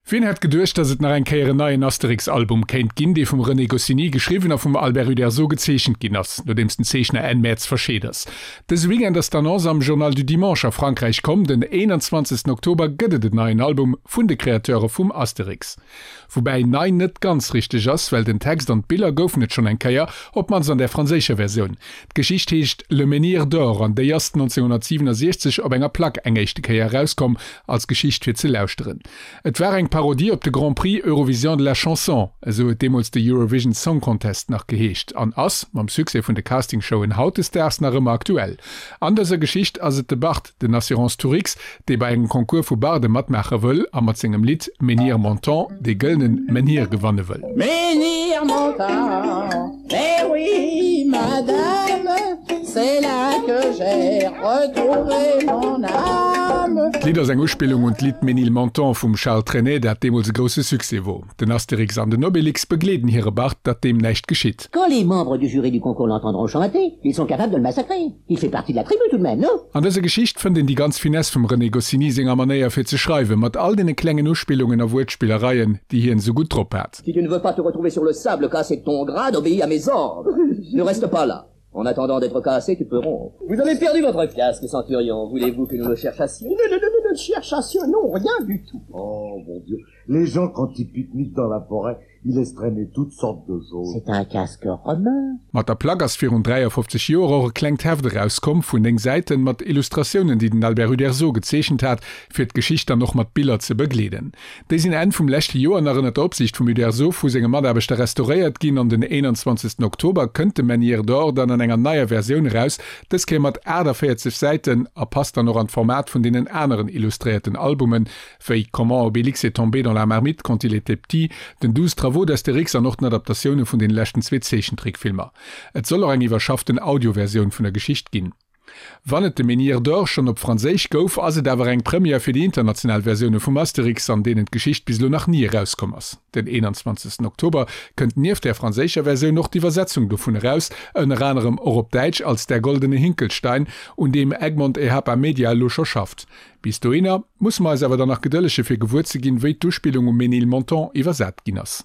Wien hätt geduecht, dass et nach eng Kéier en neien Asterix-Album kéint ginn, dee vum René Goscinny geschriwwen a vum Albert Uderzo gezeechent ginn ass, nodeems den Zeechner Enn Mäerz verscheet ass. Dëse Weekend ass d'Annonce am Journal du Dimanche a Frankräich komm, den 21 Oktober gëtt et en neien Album vun de Kreateure vum Asterix. Woubäi nei net ganz richteg ass, well den Text an d'Biller goufen et schonn eng Kéier, op d'mannst an där franséischer Versioun. D'Geschicht heescht Le Menhir d'or an déi ass 1967 op enger Plack eng éischte Kéier erauskomm, als Geschicht fir ze lauschteren. Et war eng Parodie op de Grand Prix Eurovision de la Chanson, esou huet deemools de Eurovision Song Contest nach geheescht, an ass, mam Succès vun de Castingshowen hautdesdaags, nach ëmmer aktuell. An dëser Geschicht ass et de Bart, den Assurance Tourix, dee bei engem Concours vu Barde matmaache wëll a mat sengem Lidd Menhir Montant dee gëllenen Menhir gewanne wëll. Menhir Montant, mais oui, madame, c'est là que j'ai retrouvé mon âme. D'Lidd ass eng Uspillung un d'Lidd Ménilmontant vum Charles Trenet, dat deemools e grousse Succès wor. Den Astérix an den Obélix begleeden hire Bart, datt deem näischt geschitt. Quand les membres du jury du concours l'entendront chanter, ils sont capables de le massacrer. Il fait partie de la tribu tout de même, non? An dëser Geschicht fënnt een déi ganz Finesse vum René Goscinny senger Manéier fir ze schreiwen, mat all deene klengen Uspillungen a Wuertspillereien, déi hien esou gutt drop hat. Si tu ne veux pas te retrouver sur le sable cassé de ton grade, obéis à mes ordres. Ne reste pas là. En attendant d'être cassé, tu peux rompre. Vous avez perdu votre casque, centurion. Voulez-vous que nous le cherchassions? Ne, ne, ne, ne, ne cherchassions, non, rien du tout. Oh, mon Dieu, les gens quand ils pique-niquent dans la forêt, ils laissent traîner toutes sortes de choses. C'est un casque romain. Mat der Plack ass virun 53 Joer och e klengt Heft erauskomm vun 9 Säiten mat Illustratiounen, déi den Albert Uderzo gezeechent hat, fir d'Geschicht dann och mat Biller ze begleeden. Déi sinn Enn vum leschte Joer nach ënner der Opsiicht vum Uderzo vu senge Mataarbechter restauréiert ginn an den 21 Oktober kënnt de Menhir d'Or dann an enger neier Versioun eraus, dës Kéier mat 48 Säiten a passt dann och an d'Format vun deenen aneren illustréierten Albumen, wéi Comment Obélix est tombé dans la marmite quand il était petit, den 12 Travaux d'Astérix an och den Adaptatioune vun den leschten zwee Zeechentrickfilmer. Et soll och eng iwwerschafften Audioversioun vun der Geschicht ginn. Wann et de Menhir d'Or schonn op Franséisch gouf, ass et awer eng Première fir déi international Versioune vum Astérix, an deenen d'Geschicht bis elo nach ni erauskomm ass. Den 21 Oktober kënnt nieft där franséischer Versioun och d'Iwwersetzung dovun eraus, ënner anerem och op Däitsch als Der goldene Hinkelstein, un deem Egmont Ehapa Media elo scho schafft. Bis dohinner musse mer eis awer dann nach gedëllege fir gewuer ze ginn, wéi d'Uspillung um Ménilmontant iwwersat ginn ass.